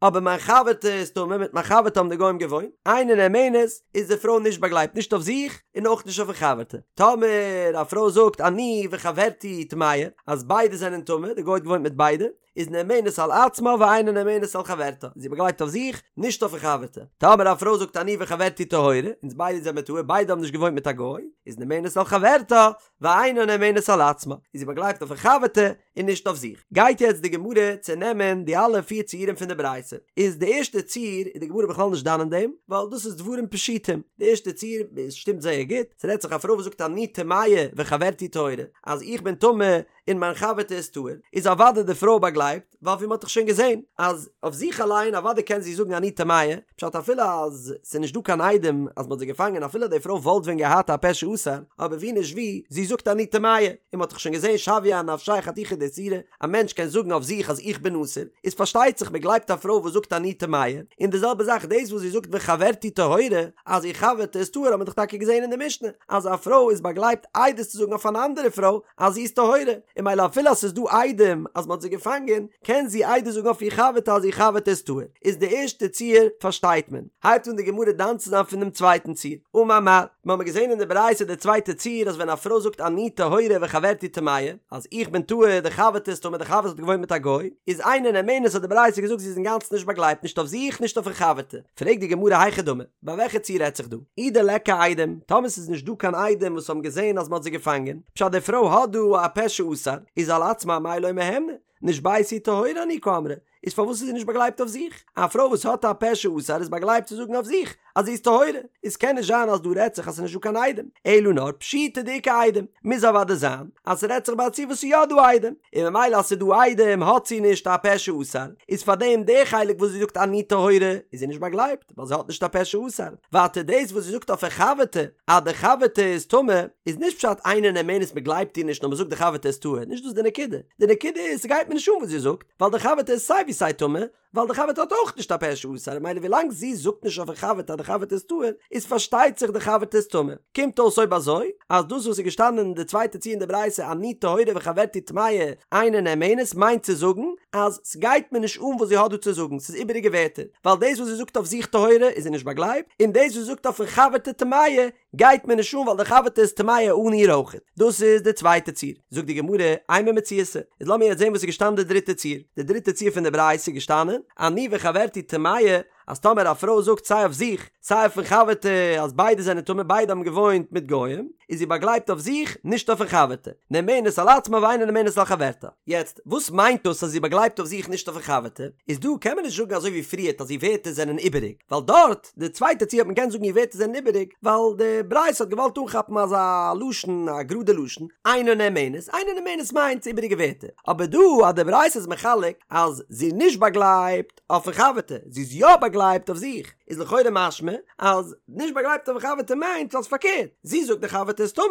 אבער מיין חבר'טע איז טמא, מיט מיין חבר'טע האבן די גוים געוואוינט, אינה נאמנת, איז די פרוי נישט באגלייבט נישט אויף זיך און אויך נישט אויפן חבר'טע. טאמער א פרוי זאגט אני וחברתי טמאה, אז ביידע זענען טמא, די גוי האט געוואוינט מיט ביידע, איז נאמנת על עצמה ואינה נאמנת על חברתה, איז זי באגלייבט אויף זיך, נישט אויפן חבר'טע. טאמער א פרוי זאגט אני וחברתי טהורה, אונז ביידע זעמער טהור, ביידע האבן נישט געוואוינט מיט א גוי, איז נאמנת על חברתה, ואינה נאמנת על עצמה, איז זי באגלייבט אויפן חבר'טע און נישט אויף זיך. גייט יעצט די גמרא צונעמען די אלע פיר ציורים פון די ברייתא. איז די ערשטע ציור איז די גמרא בכלל נישט דן אין דעם, ווייל דאס איז דברים פשוטים. די ערשטע ציור עס שטימט זייער גוט, ס'רעדט זיך א פרוי וואס זאגט אני טמאה וחברתי טהורה, אז איך בין טמא און מיין חבר'טע איז טהור, איז אוודאי די פרוי באגלייבט, ווייל ווי מ'האט דאך שוין געזען אז אויף זיך אליין אוודאי קען זי זאגן אני טמאה, פשט אפילו אז ס'איז נישט דא קיין עדים אז מ'האט זי געפאנגען אפילו די פרוי וואלט ווען געהאט א פה שאסר, אבער ווי נישט ווי, זי זאגט אני טמאה, און מ'האט דאך שוין געזען שויה אנפשיה חתיכה דאיסורא, א מענטש קען זאגן אויף זיך אז איך בין אסור, איז פארשטייט זיך מ'גלייבט א פרוי וואס זאגט אני טמאה, און די זעלבע זאך דאס וואס זי זאגט וחברתי טהורה, אז איר חבר'טע איז טהור האט מען דאך טאקע געזען אין די משנה אז א פרוי איז באגלייבט עדות צו זאגן אויף אן אנדערע פרוי אז זי איז טהורה, און ממילא אפילו אז ס'איז דא עדים אז מ'האט זי געפאנגען, קען זי עדות זאגן אויף איר חבר'טע אז איר חבר'טע איז טהור. איז די ערשטע ציור פארשטייט מען. הייבט אן די גמרא דן צו זיין פון דעם צווייטן ציור. אמר מר. מיר האבן געזען אין די ברייתא די צווייטע ציור אז ווען א פרוי זאגט אני טהורה וחברתי טמאה, אז איך בין טהור, די חבר'טע איז טמא, די חבר'טע האט געוואוינט מיט א גוי, איז אינה נאמנת האט די ברייתא געזאגט זי איז אינגאנצן נישט באגלייבט נישט אויף זיך נישט אויף איר חבר'טע. פרעגט די גמרא היכי דמי, ביי וועלכע ציור רעדט זיך דא? אי דליכא עדים, טאמער ס'איז נישט דא קיין עדים וואס האבן געזען אז מ'האט זי געפאנגען, פשט די פרוי האט דא א פה שאסר, איז על עצמה אמאי לא מהימנא, נשביתי וטהורה אני קאמרה, איז פארוואס איז זי נישט באגלייבט אויף זיך? א פרוי וואס האט א פה שאסר איז באגלייבט צו זאגן אויף זיך אז זי איז טהורה, איז קען נישט זיין אז דא רעדט זיך אז ס'איז נישט דא קיין עדים, אלא נאר פשיטא דאיכא עדים, מוז אוודאי זיין אז ס'רעדט זיך ביי א ציור וואס ס'איז יא דא עדים, און ממילא אז ס'איז דא עדים האט זי נישט א פה שאסר, איז פארדעם די חלק וואס זי זאגט אני טהורה איז זי נישט באגלייבט ווייל זי האט נישט א פה שאסר, ווייטער דאס וואס זי זאגט אויף איר חבר'טע אז די חבר'טע איז טמא איז נישט פשט אינה נאמנת מ'גלייבט איר נישט נאר מ'זאגט די חבר'טע איז טהור, נישט דאס די נקודה, די נקודה איז ס'גייט מיר נישט אן וואס זי זאגט ווייל די חבר'טע איז סיי ווי סיי טמא, ווייל די חבר'טע האט אויך נישט א פה שאסר, ממילא ווילאנג זי זאגט נישט אויפן חבר'טע אז די חבר'טע איז טהור, איז פארשטייט זיך די חבר'טע איז טמא. קומט אויס אויב אזוי, אז דאס וואס איז געשטאנען אין די צווייטע ציור אין די ברייתא אני טהורה וחברתי טמאה אינה נאמנת מיינט צו זאגן אז סגייט מיר נישט אן וואס זי האט דא צו זאגן, ס'איז איבעריגע ווערטער, ווייל דאס וואס זי זאגט אויף זיך טהורה איז זי נישט באגלייבט, און דאס וואס זי זאגט אויפן חבר'טע טמאה גייט מיר נישט אן ווייל די חבר'טע איז טמאה אן איר אויכעט. דאס איז די צווייטע ציור. זאגט די גמרא, אימא מציעתא. איז לאמיר יעצט זען וואס איז געשטאנען די דריטע ציור. די דריטע ציור פון די ברייתא איז געשטאנען, אני וחברתי טמאה, אז טאמער א פרוי זאגט סיי אויף זיך סיי אויפן חבר'טע אז ביידע זענען טמא ביידע האבן געוואוינט מיט גוים, איז זי באגלייבט אויף זיך נישט אויפן חבר'טע. נאמנת על עצמה ואינה נאמנת על חברתה. יעצט, וואס מיינט דאס אז זי באגלייבט אויף זיך נישט אויפן חבר'טע? איז דא קען מען נישט זאגן אזוי ווי פריערט אז איר ווערטער זענען איבעריג, ווייל דארט, די צווייטע ציור האט מען געקענט זאגן איר ווערטער זענען איבעריג, ווייל די ברייתא האט געוואלט אנכאפן אזא לשון, א גראדע לשון, אינה נאמנת, אינה נאמנת מיינט איבעריגע ווערטער, אבער דא אז די ברייתא איז מחלק אז זי איז נישט באגלייבט אויפן חבר'טע, זי איז יא באגלייבט אויף זיך, איז לכאורה משמע אז נישט באגלייבט אויפן חבר'טע מיינט אז פארקערט, זי זאגט די חבר'טע איז טמא,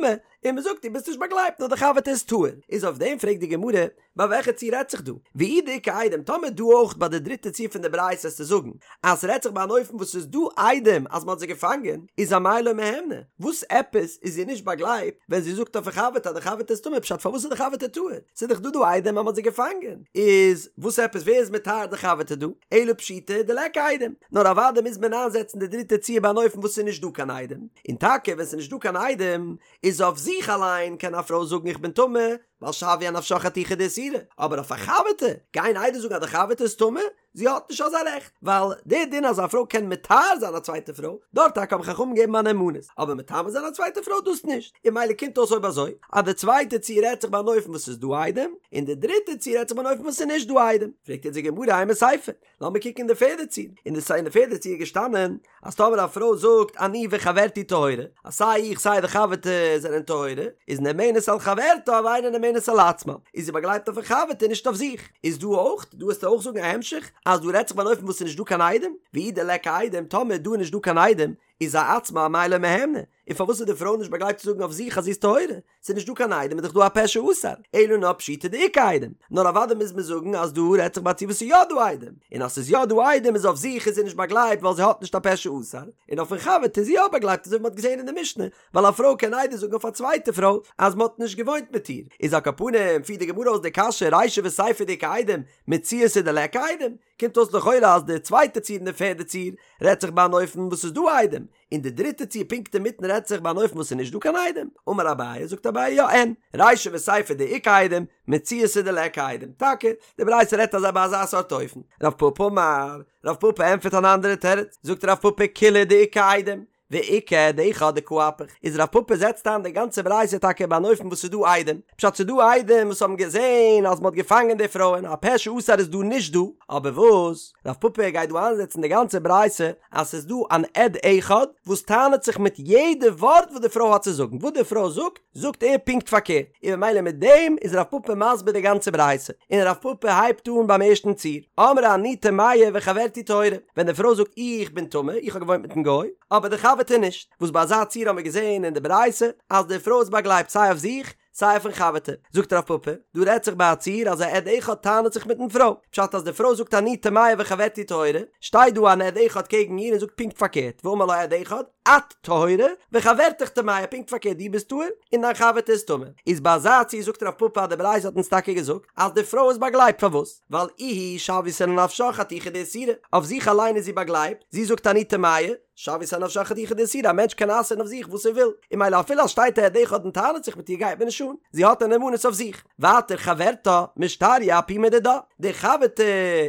און מען זאגט דו ביסט נישט באגלייבט נאר די חבר'טע איז טהור, איז אויף דעם פרעגט די גמרא, ביי וועלכע ציור רעדט זיך דא? ואי דאיכא עדים, טאמער דא אויך ביי די דריטע ציור פון די ברייתא איז צו זאגן אז ס'רעדט זיך ביי אן אופן וואס ס'איז דא עדים אז מ'האט זיי געפאנגען, איז אמאי לא מהימנא? וואס עפעס איז זי נישט באגלייבט ווען זי זאגט אויפן חבר'טע אז די חבר'טע איז טמא פשט פארוואס איז די חבר'טע טהור? ס'איז דאך דא דא עדים אז מ'האט זיי געפאנגען, איז וואס עפעס ווער איז מטהר די חבר'טע דא? אלא פשיטא דליכא עדים, נאר אוודאי מוז מען איינזעצן די דריטע ציור ביי אן אופן וואס ס'איז נישט דא קיין עדים, און טאקע ווען ס'איז נישט דא קיין עדים איז אויף זיך אליין קען א פרוי זאגן איך בין טמא, ווייל שויא אנפשה חתיכה דאיסורא, אבער אויף א חבר'טע, גיין עדות זאגן אז די חבר'טע איז טמא? זי האט נישט אזא רעכט, ווייל דער דין אז א פרוי קען מטהר זיין א צווייטע פרוי, דארט טאקע האבן חכמים געגעבן א נאמנות, אבער מטמא זיין א צווייטע פרוי דאס נישט, און ממילא קומט אויס אויב אזוי, אז די צווייטע ציור רעדט זיך ביי אן אופן וואס ס'איז דא עדים, און די דריטע ציור רעדט זיך ביי אן אופן וואס ס'איז נישט דא עדים, פרעגט יעצט די גמרא אימא סיפא, לאמיר קוקן אין די פערדע ציור, אין די אין די פערדע ציור איז געשטאנען אז טאמער א פרוי זאגט אני וחברתי טהורה, אז סיי איך סיי די חבר'טע זענען טהורה, איז נאמנת על חברתה ואינה נאמנת על עצמה, איז זי באגלייבט אויפן חבר'טע נישט אויף זיך. איז דא אויך, דא וועסטו אויך זאגן א המשך, אז דא רעדט זיך ביי אן אופן וואס ס'איז נישט דא קיין עדים, ואי דליכא עדים, טאמער דא איז נישט דא קיין עדים, איז אעצמה אמאי לא מהימנא, און פארוואס איז די פרוי נישט באגלייבט צו זאגן אויף זיך אז זי איז טהורה? ס'איז נישט דא קיין עדים איז דאך דא א פה שאסר, אלא נאר פשיטא דאיכא עדים, נאר אוודאי מוז מען זאגן אז דא רעדט זיך ביי א ציור וואס ס'איז יא דא עדים, און אז ס'איז יא דא עדים איז אויף זיך איז זי נישט באגלייבט ווייל זי האט נישט א פה שאסר, און אויפן חבר'טע איז זי יא באגלייבט אזוי ווי מ'האט געזען אין די משנה, ווייל א פרוי קען עדות זאגן אויף א צווייטע פרוי אז מ'האט נישט געוואוינט מיט איר, איז על כל פנים פירט די גמרא אויס די קשיא רישא וסיפא דאיכא עדים, מציעתא דליכא עדים, קומט אויס לכאורה אז די צווייטע ציור און די פערדע ציור רעדט זיך ביי אן אופן וואס ס'איז דא עדים, און די דריטע ציור פונקט אינמיטן רעדט זיך ביי אן אופן וואס ס'איז נישט דא קיין עדים. אמר אביי, זאגט אביי יא אין, רישא וסיפא דאיכא עדים, מציעתא דליכא עדים. טאקע, די ברייתא רעדט אזא ביי אזא סארט אופן. רב פפא אמר, רב פפא ענטפערט אן אנדערע תירוץ, זאגט רב פפא כולה דאיכא עדים, ואיכא עד אחד דקא אפיך, איז רב פפא זעצט איין די גאנצע ברייתא טאקע ביי אן אופן וואס ס'איז דא עדים, פשט ס'איז דא עדים וואס האבן געזען אז מ'האט געפאנגען די פרויען, א פה שאסר איז דא נישט דא, אבער וואס? רב פפא גייט דא איינזעצן די גאנצע ברייתא אז ס'איז דא אן עד אחד וואס טענה'ט זיך מיט יעדע ווארט וואס די פרוי האט צו זאגן, וואס די פרוי זאגט, זאגט ער פונקט פארקערט, און ממילא מיט דעם איז רב פפא מסביר די גאנצע ברייתא, און רב פפא הייבט אן ביים ערשטן ציור, אמרה אני טמאה וחברתי טהורה, ווען די פרוי זאגט איך בין טמא, איך האב געוואוינט מיטן גוי, אבער די חבר'טע נישט, וואס ביי אזא ציור האבן מיר געזען אין די ברייתא אז די פרוי איז באגלייבט סיי אויף זיך סיי אויפן חבר'טע, זאגט רב פפא, דא רעדט זיך ביי א ציור אז א עד אחד טענה'ט זיך מיטן פרוי, פשט אז די פרוי זאגט אני טמאה וחברתי טהורה, שטייט דא אן עד אחד קעגן איר און זאגט פונקט פארקערט, ואמר לה עד אחד, את טהורה וחברתך טמאה, פונקט פארקערט דו ביסט טהור און דיין חבר'טע איז טמא, איז ביי אזא ציור זאגט רב פפא אז די ברייתא האט אונז טאקע געזאגט אז די פרוי איז באגלייבט פארוואס? ווייל איהי שויתיה לנפשה חתיכה דאיסורא, אויף זיך אליין איז זי באגלייבט, זי זאגט אני טמאה, שויתיה לנפשה חתיכה דאיסורא, א מענטש קען אסר'ן אויף זיך וואס ער וויל, און ממילא אפילו אז שטייט א עד אחד און טענה'ט זיך מיט איר גייט מיר נישט אן, זי האט א נאמנות אויף זיך. ווייטער חברתה משתריא אפומא דידה, די חבר'טע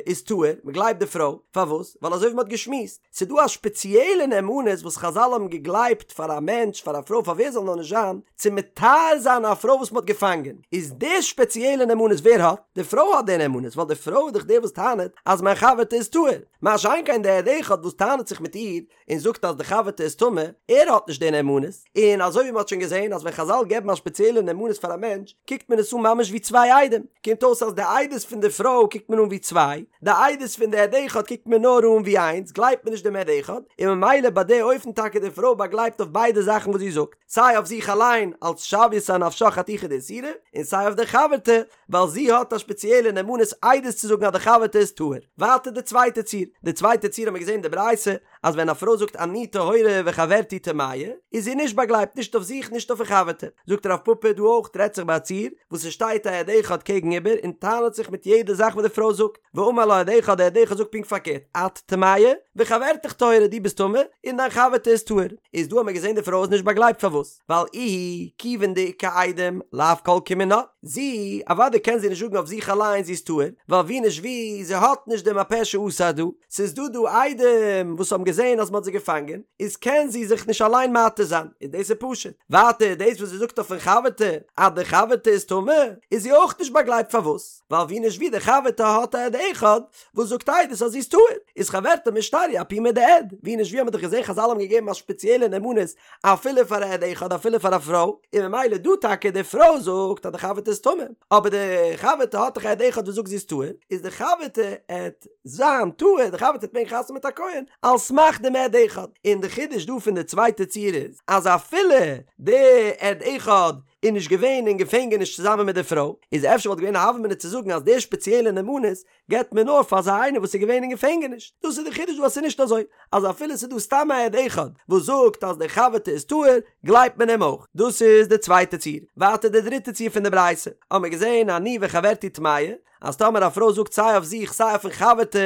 איז טהור, מען גלייבט די פרוי, פארוואס? ווייל אזוי ווי מען האט געשמועסט, ס'איז דא א שפעציעלע נאמנות וואס חזל האבן געגלייבט פאר א מענטש, פאר א פרוי, פאר ווער זאל נאר נישט זיין, צו מטהר זיין א פרוי וואס מען האט געפאנגען, איז די שפעציעלע נאמנות ווער האט? די פרוי האט די נאמנות, ווייל די פרוי איז דאך די וואס טענה'ט אז מיין חבר'טע איז טהור, מה שאין כן דער עד אחד וואס טענה'ט זיך מיט איר און זאגט אז די חבר'טע איז טמא, ער האט נישט די נאמנות, און אזוי ווי מ'האט שוין געזען אז ווען חזל געבן א שפעציעלע נאמנות פאר א מענטש, קוקט מען עס אן ממש ווי צוויי עדים, קומט אויס אז די עדות פון די פרוי קוקט מען אן ווי צוויי, די עדות פון די עד אחד קוקט מען נאר אן ווי איינס, גלייבט מען נישט דעם עד אחד, און ממילא ביי די אופן טאקע. טאקע די פרוי באגלייבט אויף ביידע זאכן וואס זי זאגט, סיי אויף זיך אליין אלס שויתה אנפשה חתיכה דאיסורא, און סיי אויף די חבר'טע ווייל זי האט א שפעציעלע נאמנות עדות צו זאגן אז די חבר'טע איז טהור. ווייטער די צווייטע ציור, די צווייטע ציור האט מען געזען אין די ברייתא אז ווען א פרוי זאגט אני טהורה וחברתי טמאה איז זי נישט באגלייבט נישט אויף זיך נישט אויפן חבר'טע. זאגט רב פפא דא אויך רעדט זיך ביי א ציור וואס עס שטייט א עד אחד קעגן איבער און טענה'ט זיך מיט יעדע זאך וואס די פרוי זאגט, ואמר לה עד אחד, דער עד אחד זאגט פונקט פארקערט, את טמאה וחברתך טהורה דו ביסט טמא און דיין חבר'טע איז טהור. איז דא האט מען געזען די פרוי איז נישט באגלייבט פארוואס? ווייל איהי כיוון דאיכא עדים לאו כל כמינה, זי, אוודאי קען זי נישט זאגן אויף זיך אליין זי איז טהור, ווייל ווי נישט ווי, זי האט נישט דעם הפה שאסר דא, ס'איז דא דא עדים וואס האבן געזען אז מ'האט זי געפאנגען, איז קען זי זיך נישט אליין מתיר זיין, און דאס איז פשוט. ווייטער דאס וואס זי זאגט אויפן חבר'טע אז די חבר'טע איז טמא, איז זי אויך נישט באגלייבט פארוואס? ווייל ווי נישט ווי די חבר'טע האט א עד אחד וואס זאגט עדות אז זי איז טהור, איז חברתה משתריא אפומא דעד, ווי נישט ווי האט מען דאך געזען חזל האבן געגעבן א שפעציעלע נאמנות אפילו פאר א עד אחד אפילו פאר א פרוי, און ממילא דא טאקע די פרוי זאגט אז די חבר'טע איז טמא, אבער די חבר'טע האט דאך א עד אחד וואס זאגט זי איז טהור, איז די חבר'טע עט זיין טהור, די חבר'טע עט מעגן חתונה מיט א כהן, על סמך דעם עד אחד, און די חידוש דא פון די צווייטע ציור איז, אז אפילו די עד אחד איז נישט געווען אין געפענגעניש צוזאמען מיט די פרוי, איז אפשר וואלט געווען א הוה אמינא צו זאגן אז די שפעציעלע נאמנות געבט מען נאר פאר אזא איינער וואס איז געווען אין געפענגעניש, דאס איז די חידוש דא אז ס'איז נישט אזוי אז אפילו ס'איז דא סתם א עד אחד וואס זאגט אז די חבר'טע איז טהור גלייבט מען אים אויך, דאס איז די צווייטע ציור, ווייטער די דריטע ציור פון די ברייתא האבן מיר געזען אני וחברתי טמאה, אז טאמער א פרוי זאגט סיי אויף זיך סיי אויפן חבר'טע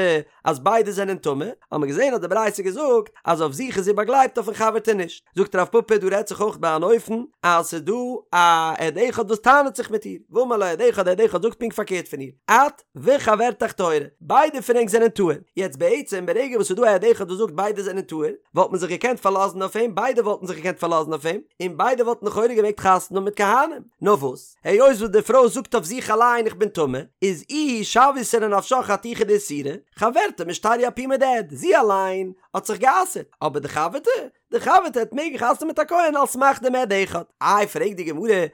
אז ביידע זענען טמא, האבן מיר געזען אז די ברייתא געזאגט אז אויף זיך איז זי באגלייבט אויפן חבר'טע נישט, זאגט רב פפא דא רעדט זיך אויך ביי אן אופן אז ס'איז דא א עד אחד וואס טענה'ט זיך מיט איר, ואמר לה עד אחד, עד אחד זאגט פונקט פארקערט פון איר, את וחברתך טהורה, ביידע פון ענק זענען טהור, יעצט בעצם ברגע וואס ס'איז דא א עד אחד וואס זאגט ביידע זענען טהור, וואלט מען זיך געקענט פארלאזן אויף אים, ביידע וואלטן זיך געקענט פארלאזן אויף אים, און ביידע וואלטן לכאורה געמעגט חתונה האבן מיט כהנים, נאר וואס? היות וואס די פרוי זאגט אויף זיך אליין איך בין טמא, איז איהי שויתה לנפשה חתיכה דאיסורא, חברתה משתריא אפומא דעד, זי אליין האט זיך גע'אסר'ט, אבער די חבר'טע? די חבר'טע העט מעגן חתונה מיט א כהן על סמך דעם עד אחד. איי פרעגט די גמרא, הא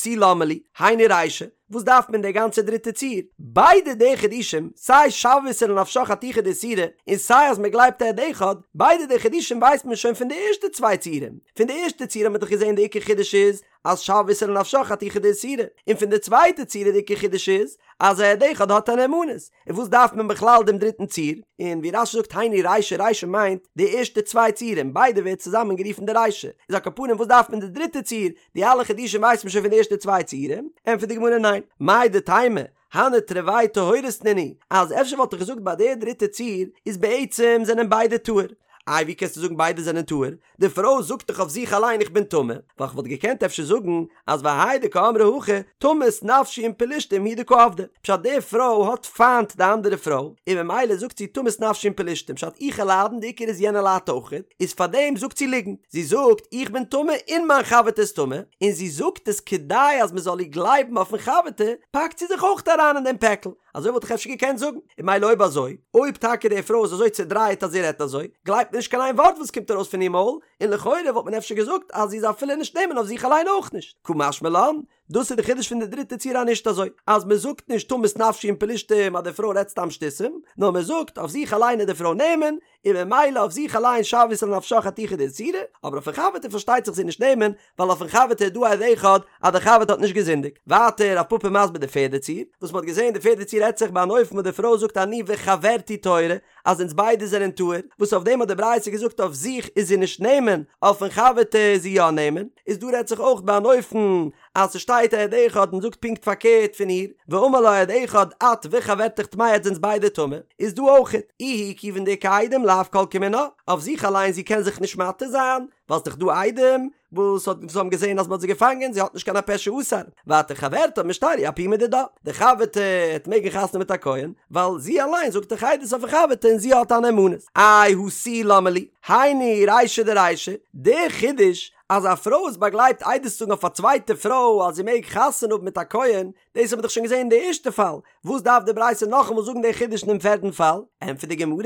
תו למה לי, היינו רישא, וואס דארף מען די גאנצע דריטע ציור? ביידע די חידושים, סיי שויתה לנפשה חתיכה דאיסורא, און סיי אז מען גלייבט עד אחד, ביידע די חידושים ווייסט מען שוין פון די ערשטע צוויי ציורים. פון די ערשטע ציור האט מען דאך געזען די עיקר חידוש איז, אז שויתה לנפשה חתיכה דאיסורא, און פון די צווייטע ציור די עיקר חידוש איז, אז א עד אחד האט א נאמנות, און וואס דארף מען בכלל דעם דריטן ציור? און ווי רש"י זאגט היינו רישא רישא מיינט די ערשטע צוויי ציורים, ביידע ווערט צוזאמען גערופן די רישא, איז על כל פנים וואס דארף מען די דריטע ציור, די אלע חידושים ווייסט מען שוין פון די ערשטע צוויי ציורים, ענטפערט די גמרא ניין, מהו דתימא, הני תרוייהו טהורות נינהו, אז אפשר וואלט איך געזאגט ביי די דריטע ציור איז בעצם זענען ביידע טהור, איי ווי קענסטו זאגן ביידע זענען טהור? די פרוי זאגט דאך אויף זיך אליין איך בין טמא, ווייל כ'וואלט געקענט אפשר זאגן אז והאי דקאמרה הכי, תמות נפשי עם פלשתים הוא דקא עבדא, פשט די פרוי האט פיינט די אנדערע פרוי, און ממילא זאגט זי תמות נפשי עם פלשתים, פשט איך וועל ליידן די עיקר איז יענער ליידט אויכעט, איז פארדעם זאגט זי ליגנט, זי זאגט איך בין טמא און מיין חבר'טע איז טמא, און זי זאגט עס כדי אז מ'זאל איר גלייבן אויפן חבר'טע, פאקט זי זיך אויך אריין אין דעם פעקל. אזוי וואלט איך אפשר געקענט זאגן. און ממילא אויב אזוי, אויב טאקע די פרוי איז אזוי צעדרייט אז זי רעדט אזוי, גלייבט מען נישט קיין איין ווארט וואס קומט ארויס פון איר מויל, און לכאורה וואלט מען אפשר געזאגט אז זי איז אפילו נישט נאמן אויף זיך אליין אויך נישט. קא משמע לן, דאס איז די חידוש פון די דריטע ציור אז נישט אזוי, אז מען זאגט נישט תמות נפשי עם פלשתים אז די פרוי רעדט סתם שטותים, נאר מען זאגט אויף זיך אליין איז די פרוי נאמן, און ממילא אויף זיך אליין שויתה לנפשה חתיכה דאיסורא, אבער אויפן חבר'טע פארשטייט זיך זי נישט נאמן, ווייל אויפן חבר'טע איז דא א עד אחד אז די חבר'טע האט נישט געזינדיגט. ווייטער רב פפא מסביר די פערדע ציור, וואס מ'האט געזען די פערדע ציור רעדט זיך ביי אן אופן וואס די פרוי זאגט אני וחברתי טהורה, אז אונז ביידע זענען טהור, וואס אויף דעם האט די ברייתא געזאגט אויף זיך איז זי נישט נאמן, אויפן חבר'טע איז זי יא נאמן, איז דא רעדט זיך אויך ביי אן אופן אז ס'שטייט א עד אחד און זאגט פונקט פארקערט פון איר, ואמר לה עד אחד את וחברתך טמאה עטס זענטס ביידע טמא, איז דא אויכעט, איהי כיוון דאיכא עדים לאו כל כמינה, אויף זיך אליין זי קען זיך נישט מתיר זיין, ווייל ס'דאך דא עדים וואס האט וואס האבן געזען אז מ'האט זי געפאנגען, זי האט נישט קיין הפה שאסר, ווייטער חברתה משתריא אפומא דידה, די חבר'טע העט מעגן חתונה מיט א כהן, ווייל זי אליין זאגט דאך עדות אויפן חבר'טע און זי האט א נאמנות. איי הא תו למה לי, היינו רישא דרישא, די חידוש. אז א פרוי איז באגלייבט עדות צו זאגן אויף א צווייטע פרוי אז זי מעג חתונה האבן מיט א כהן, דאס האט מען דאך שוין געזען אין די ערשטע פאל, וואס דארף די ברייתא נאכאמאל זאגן די חידוש אינעם פערטן פאל? ענטפערט די גמרא,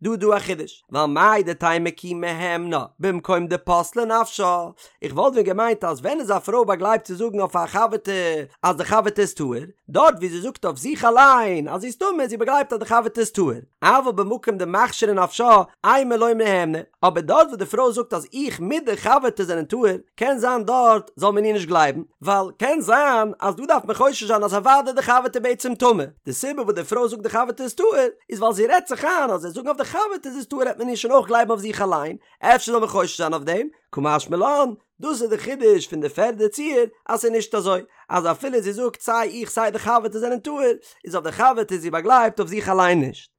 דא איז דא א חידוש, ווייל מהו דתימא כי מהימנה במקום דפסלה נפשה, איך וואלט ווען געמיינט אז ווען איז א פרוי באגלייבט צו זאגן אויף א חבר'טע אז די חבר'טע איז טהור, דארט ווי זי זאגט אויף זיך אליין אז זי איז טמא איז זי באגלייבט אז די חבר'טע איז טהור, אבל במקום דמכשרא נפשה אימא לא מהימנא, אבער דארט וואס די פרוי זאגט אז איך מיט די חבר'טע זענען טהור, קען זיין דארט זאל מען איר נישט גלייבן, ווייל קען זיין אז דא דארף מען חושש זיין אז אוודאי די חבר'טע בעצם טמא, די סיבה וואס די פרוי זאגט די חבר'טע איז טהור איז ווייל זי רעדט זיך איין אז זי זאגן אויף די חבר'טע זי איז טהור העט מען איר שוין אויך גלייבן אויף זיך אליין, אפשר זאל מען חושש זיין אויף דעם, קא משמע לן, דאס איז די חידוש פון די פערדע ציור אז ס'איז נישט אזוי אז אפילו זי זאגט סיי איך סיי די חבר'טע זענען טהור, איז אויף די חבר'טע איז זי באגלייבט אויף זיך אליין נישט.